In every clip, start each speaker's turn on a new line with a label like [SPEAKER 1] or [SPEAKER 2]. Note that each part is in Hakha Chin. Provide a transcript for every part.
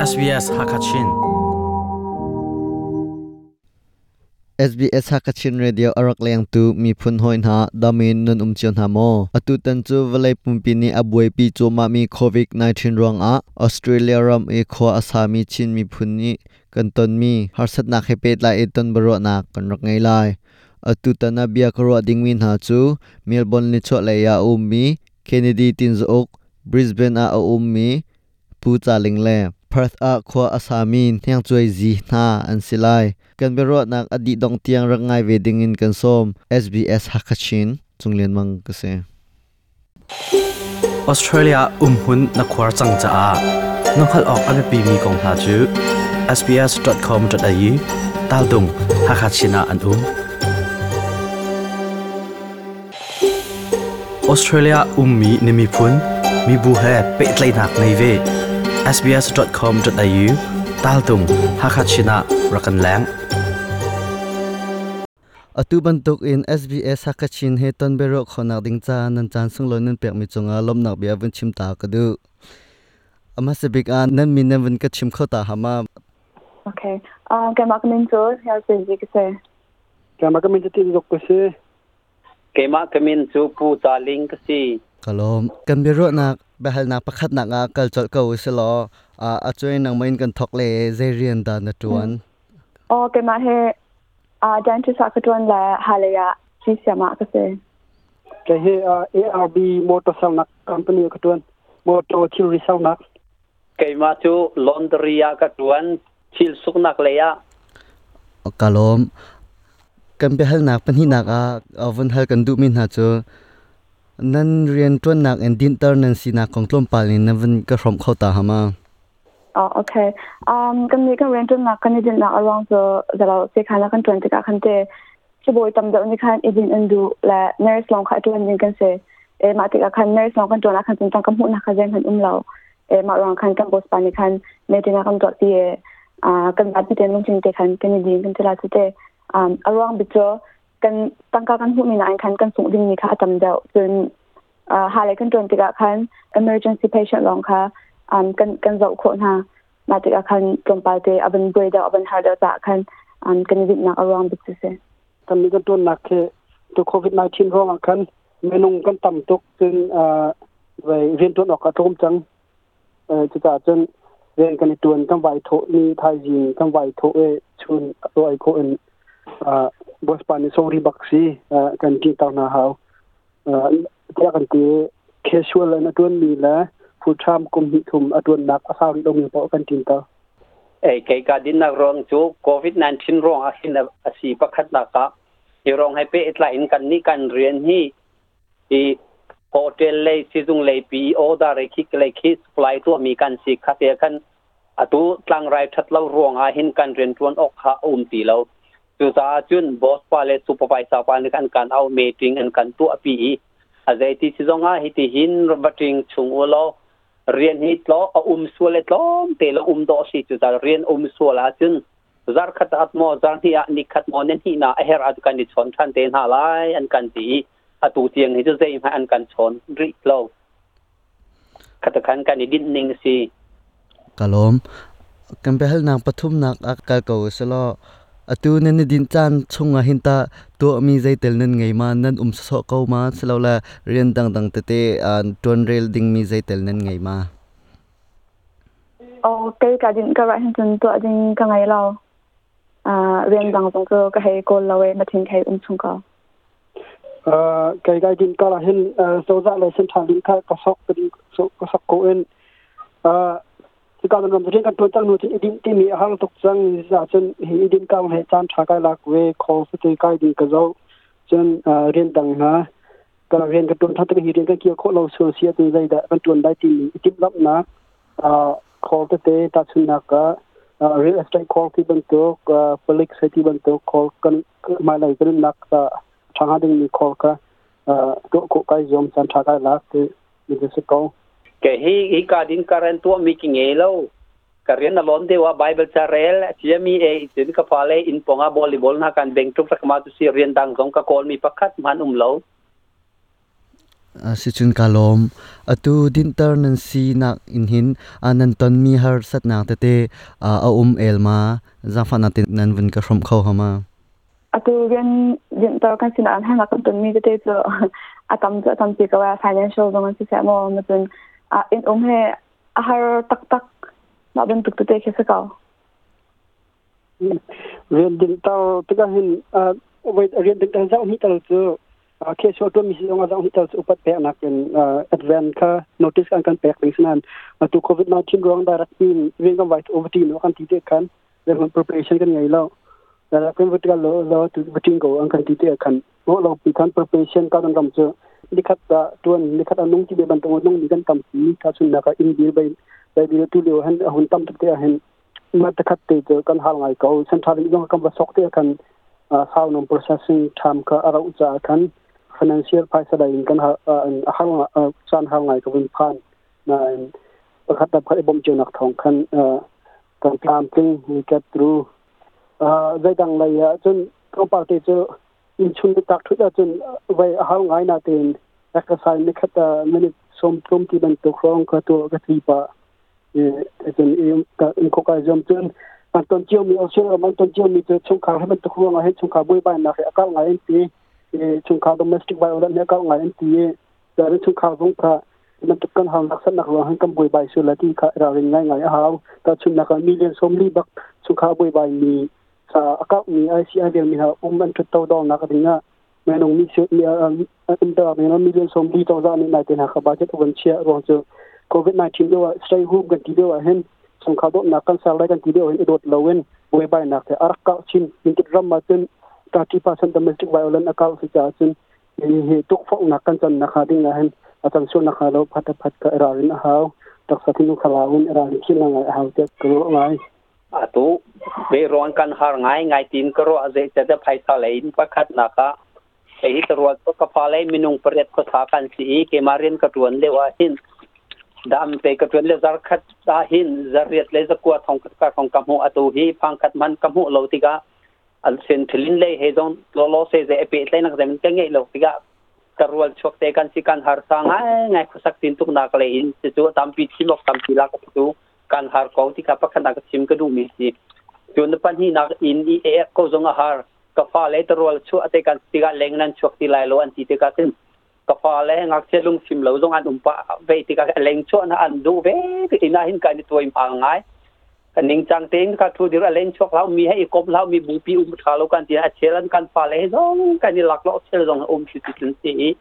[SPEAKER 1] SBS Hakachin.
[SPEAKER 2] SBS Hakachin Radio a rak lengtu miphun hawi hna damin nan um cio hna maw? Atutan cu vawlei pumpi nih a buaipi cuahmahmi COVID-19 ruangah Australia ram i khua a sami Chin miphun nih kan tonmi harsatnak he pehtlai in ton biaruahnak kan rak ngei lai. Atutan ah bia ka ruah dingmi hna cu Melbourne nichuahlei ah a ummi Kennedy Tinzauk, Brisbane ah a ummi Pu Ca Ling le Perth ah khua a sami Hniangcuai Zi hna an si lai. Kan biaruahnak a dih dongh tiang rak ngai ve dingin kan sawm. SBS Hakachin, Cung Lian Mang ka si.
[SPEAKER 1] Australia umhmun na khuar cang caah na hngalh awk a biapimi kong hna cu sbs.com.au taldung Hakachin ah an um. Australia ummi na miphun, mibu he pehtlaihnak ngei ve. sbs.com.au taltung Hakha Chin ah rak kan leng.
[SPEAKER 2] Atu bantuk in SBS Hakachin he ton biaruah khawhnak ding ca nan caan sunglawi nan pekmi cungah lawmhnak bia vun chim ta ka duh. A hmasa bik ah nan min nan vun ka chim kho ta hama.
[SPEAKER 3] Okay. Keimah ka min cu Hniar Zi ka si.
[SPEAKER 4] Keimah ka min cu Tin Zuk ka si.
[SPEAKER 5] Keimah ka min cu Pu Ca Ling ka si.
[SPEAKER 2] Ka lawm. Kan biaruahnak biahalnak pakhatnak ah kal colh ko usih law a cuai nangmah in kan thawk le zei rian dah na ṭuan?
[SPEAKER 3] Aw, keimah hi dentist ah ka ṭuan le halei ah siam ah ka si.
[SPEAKER 4] Kei hi ARB motor sernak company ah ka ṭuan. Motor thilri sernak.
[SPEAKER 5] Keimah cu laundry ah ka ṭuan. Thil suknak lei ah.
[SPEAKER 2] Ka lawm. Kan biahalnak pahnihnak ah vun hal kan duhmi hna cu nan rianṭuannak in dinhter nan sinak kong tlawmpal in nan vun ka hrawmh kho ta hama?
[SPEAKER 3] Oh, okay. Kan nih kan rianṭuannak kan i dinhnak a ruang cu zalo sekhan ah kan ṭuan tikah khan te sibawi tam deuh nih khan i dinh an duh le nurse lawng kha a ṭuan ding kan si. E mah tikah khan nurse lawng kan ṭuan ah khan cun tangka hmuhnak kha zeihmanh um lo. E mah ruang khan kan boss pa nih khan meeting ah kan tuahpi i kan zapi tein lungthin te khan kan i din kan ti la cu te. A ruang bik cu kan tangka kan hmuhmi nain khan kan sungh dingmi kha a tam deuh. Cun ha le kan ṭuan tikah khan emergency patient lawng kha kan zoh khawh hna. Mah tikah khan tlawmpal te a van buai deuh, a van har deuh caah khan kan i dinhnak a ruang bik cu si.
[SPEAKER 4] Kan nih kan ṭuannak khi tu COVID-19 ruangah khan minung kan tam tuk cun rianṭuan awk a tlawm cang. Cucaah cun rian kan i ṭuan kan vai thawh ni thaizing kan vai thawh i chun ruai khawh in boss pa nih sorry bak si kan ṭihter hna hau. Tiah kan ti casual in a ṭuanmi le full time kum hnih thum a ṭuannak a sau rih lomi paoh kan ṭinter.
[SPEAKER 5] Ei kei ka dinnak ruang cu COVID-19 ruang ah hin a si pakhatnak ah hi ruang he pehtlai in kan nih kan rian hi i hotel lei sizung lei pi order khi lei khi supply tuahmi kan si kha te khan atu tlangrai that lo ruang ah hin kan rian tuan awk kha a um ti lo. Cucaah cun boss pa le supervisor pa nih an kan au meeting an kan tuah pi i a zeiti si zong ah hiti hin vating chung u law rian hi tlo a um sual le tlawm te lo um dawh si. Cucaah rian um sual ahcun zarkhat at maw zarhnih ah nikhat maw nan hnih na a herh ah kan i chawn ṭhan te hna lai an kan ti i atu tiang hi cu zeihmanh an kan chawn rih lo. Khatakhan kan i dinh ning si.
[SPEAKER 2] Ka lawm. Kan biahalnak pathumnak ah kal ko selaw atu nan i dinh caan chungah hin tah tuahmi zeitel nan ngei ma, nan um sawsawh ko ma, silole rian dangdang tete ṭuanrel dingmi zeitel nan ngei ma?
[SPEAKER 3] Oh, kei ka dinh ka rah hin cun tuah ding ka ngei lo. Rian dang zong cu ka hei kawl lo i mathin hei um chung ko.
[SPEAKER 4] Kei kai din kal ah hin cozah le central din kha ka sok ka sok ko in hika ram rian kan tuan cang nu cun idin timi a hang tuk cang. Za cun hi idin kang he caan tha kai lak ve call te kai ding ka zo cun rian dang hna ka rian ka tuan than hi rian kan kir khawh lo sual sia tu zei dah kan tuan dai timi itim lamnak call tete tahchunnak ka real estate call ti bantuk, public safety bantuk call kan hmailei kan nunnak ṭha hnga dingmi call kha tuah khawh kai zuam, caan ṭha kai lak ti mi si ko.
[SPEAKER 5] Ke hi hi ka din karen tuah mi ki ngei lo. Ka rian a lon dewa Bible ca rel chiami e cun ka fale in ponga volleyball na kan beng tuk rak ma tu si rian dang zong ka kawl mi pakhat man um lo.
[SPEAKER 2] Sicun ka lawm. Atu dinter nan si nak in hin nan ton mi har satnak tete a el ma zafa na tin nan vun ka hrom kho hama?
[SPEAKER 3] Atu rian dinter kan sin an hang kan ton mi tete chu atam chu atam pi ka wa financial zong an si sa mo ma chun in he a har tak tak ma ban tuk tete khe sa ka.
[SPEAKER 4] Rian dinter tika hin wait, rian dinter zau ni tal chu ke so to mi si ong zau ni tal chu upat pe nak in advance kha notice kan kan pek ding sanan. Tu COVID 19 rong direct pin rian kan white over team kan ti te kan then preparation kan ngai lo da kan vertical lo lo tu vertical go an kan ti te kan lo lo pi kan preparation ka kan ram chu likhat da tuan likhat anung ti be ban tong nung ni kan tam pi ta chun na ka in bil bai bai bil tu leo han hun tam te hen ma ta khat te kan hal ngai ko central jong kam ba sok te kan how non processing time ka ara ucha kan financial paisa da in kan ha hal chan hal ngai ko win phan na pakhat da phat bom nak thong khan kan plan ting we get through zai dang lai ya chun ko pa te chu in chun tak thu da chun vai hal ngai na ten exercise ni khat minute som thum ti ban to khrong ka to ka tri pa e chun im ka in ko ka jom chun an ton chiu mi Australia man ton chiu mi chu chung kha he man to khrong he chung kha bui bai na he akal ngai ti chung kha domestic violence ne akal ngai ti da chung kha zong kha man to kan hang nak san nak ro han kam bui bai su la ti kha ra ring ngai ngai haw ta chun na ka million som li bak chung kha bui bai mi sa akal mi ICI del mi ha an thu to dong na ka dinga me nong mi su mi um ta me no million som li to za ni na te na kha budget on chia ro chu COVID 19 do stay home kan ti do hen chung kha do na kan sal lai kan ti do hen dot lowen bui bai nak te arak ka chin min tit ram ma chun 30% domestic violence akal si cha chun he tuk phok na kan chan na kha ding na hen achan su na kha lo phat phat ka ra rin haw tak sa thinu khala un ra rin khil na ngai haw te ko ngai.
[SPEAKER 5] Atu ve ron kan har ngai ngai tin ko ro aze cha da phaisa lein pakhat na ka ei to ro to ka pha lai minung pariat ko sa kan si ke marin ka tuan le wa hin dam te ka tuan le zar khat ta hin zariat le zakwa thong ka thong kam hu atu hi phang khat man kam hu lo ti ka al sen thilin le he zong lo lo se ze pe tlai nak zem ka ngai lo ti ka karwal chok te kan si kan har sa ngai ngai khusak tin tuk nak le in chu tam pi chimok tam pi la ka tu kan har ko ti ka pakhan nak chim ka du mi si chun pan hi nak in i e ko zong a har ka fa le tarwal chu ate kan ti ga leng nan chok ti lai lo an ti te ka tin ka fa le ngak che lung sim lo zong an um pa ve ti ka leng chu na an du ve ti ina hin ka ni toy ma ngai kan ning chang teng ka thu dir a leng chok lau mi he kop lau mi bu pi tha lo kan ti a chelan kan fa le zong kan ni lak lo chel zong si ti tin si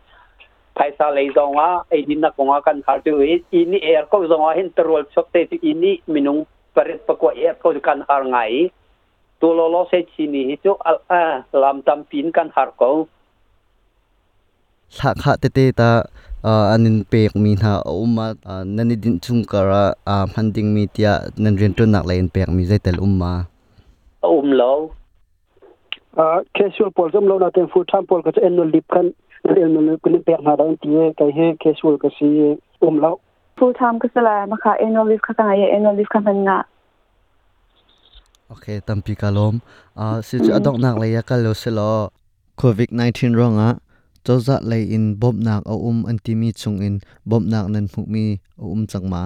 [SPEAKER 5] phaisa le zong a ei din na konga kan har tu i ni er ko zong a hin tarwal chok te ti ini minung paret pakwa er ko kan har ngai tu lo lo se chi ni hi chu a lam tam pin kan har ko.
[SPEAKER 2] Thla kha te te ta anin pek mi na umma nani din chung kara man ding mi tia nan rian ton nak lein pek mi zaitel umma?
[SPEAKER 5] Lo.
[SPEAKER 4] Casual pol jom lo na ten full time pol ka annual leave kan annual leave kan pek na da ti kai he casual ka si lo.
[SPEAKER 3] Full time ka sala ma kha annual leave kha ka ngai annual leave kha man nga.
[SPEAKER 2] Okay, tampi kalom si chu adok nak le ya kal lo se lo COVID 19 ronga choza lei in bom nak a an ti mi chung in bom nak nan mu mi a changma.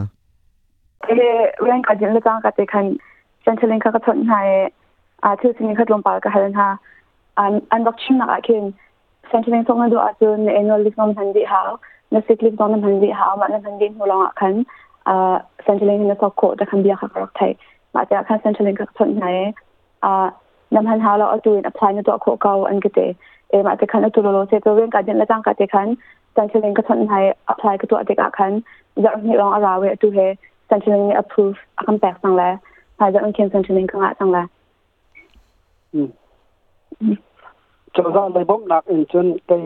[SPEAKER 3] Ke ren ka jin le chang ka te khan Centrelink ka ka thon hai a thu sin khat lom pa ka halen ha an an bak chim nak a khin Centrelink song na do a chu ne annual leave nom han di ha na sick leave nom han di ha ma na han di hu long a khan a Centrelink na sok ko ta khan bia kha rak thai ma ta khan Centrelink ka thon hai a nam han ha lo atu in apply na to kho kaw an ke te e ma te khan atu lo lo se to ren ka jin la chang ka te khan Centrelink ka thon hai apply ka to ate ka khan za ni long ara we atu he Centrelink ni approve a kan pek sang la ha za khin Centrelink ka nga sang la.
[SPEAKER 4] Choza lai bom nak in chun kai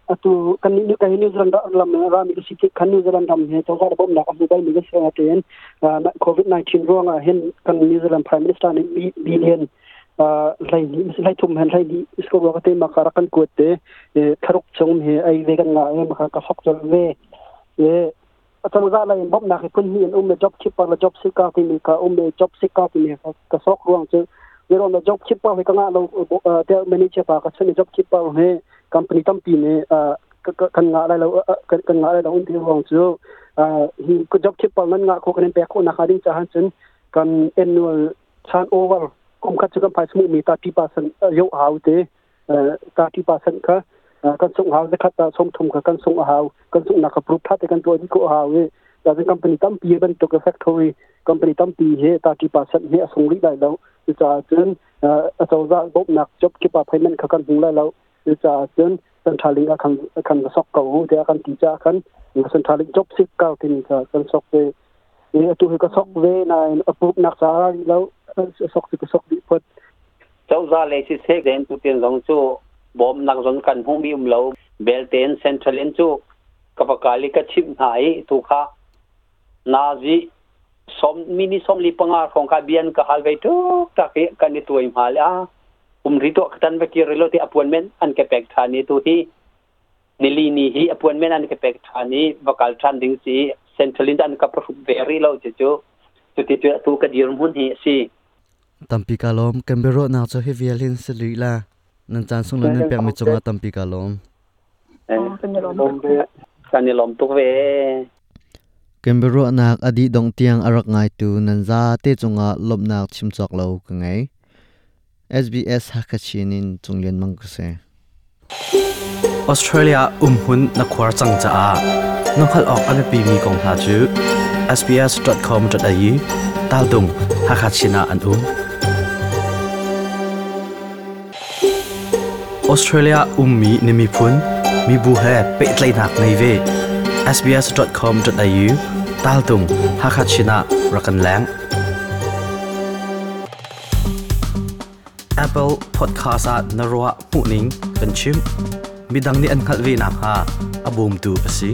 [SPEAKER 4] atu kan ni kai New Zealand lam ra mi si kan New Zealand ram he choza bom nak amu bai mi se aten COVID 19 ronga hin kan New Zealand Prime Minister ni billion lai ni lai thum hen lai ni isko ro ka te ma ka kan ko te tharuk chung he ai ve kan nga ma ka sok chol ve e choza lai bom nak phun hi me job keeper la job seeker ti mi ka me job seeker ti mi ka sok ruang chu yero na job keeper he ka nga lo te manager pa ka chen job keeper he company tam pi ne. Kan nga lai lo, kan nga lai lo ti ruang cu hi job keeper nan nga kho, kan in pek kho nak ding cha han cun kan annual turnover kum khat chu kan phai smu mi 30% yo hau te, 30% kha kan sung hau, zakhat ta som thum kha kan sung hau, kan sung nak ka proof tha te kan to di ko hau e. Da company tampi ban to ka factory company tampi he 30% he asung ri lai lo cha cun a chawza bop nak job keeper payment kha kan hung lai lo cha cun Centrelink a kan kan sok ko te kan ti cha kan Centrelink job seeker tin ka kan sok ve e. Atu hi ka sok ve na approve nak cha lo, sok ka sok di phot.
[SPEAKER 5] Chawza le si se den tu ten zong chu bom nak zon kan hung mi um lo bel ten. Centrelink chu ka pakali ka chim nai tu kha nazi som mini som li panga khong ka bian ka hal ve tu ta ke kan ni tuai ma la um ri to katan ve ki relo ti appointment an ke pek thani. Tu hi nili ni hi appointment an ke pek thani vakal than ding si. Centrelink an ka proof very lo chu chu chu ti chu tu ka dir mun hi si.
[SPEAKER 2] Tampi ka lom kan bero na cho hi vialin seli la nan chan sung lan pek mi chunga tampi ka lom.
[SPEAKER 5] Kan ni lom tuk ve.
[SPEAKER 2] Kembero nak adi dong tiang arak ngai tu nan za te chunga lomnak chimchok lo ka ngai. SBS Hakachinin chunglen mang ka se.
[SPEAKER 1] Australia umhun na khwar chang cha a nokhal ok ame pi mi kong hna chu sbs.com.au tal dung Hakachina an Australia ummi nimi phun mi bu he pe tlai nak nei ve sbs.com.au tal tung Hakachina rakan lang. Apple Podcast at narwa muning kan chim midang ni an khalvi na ha abum tu asi.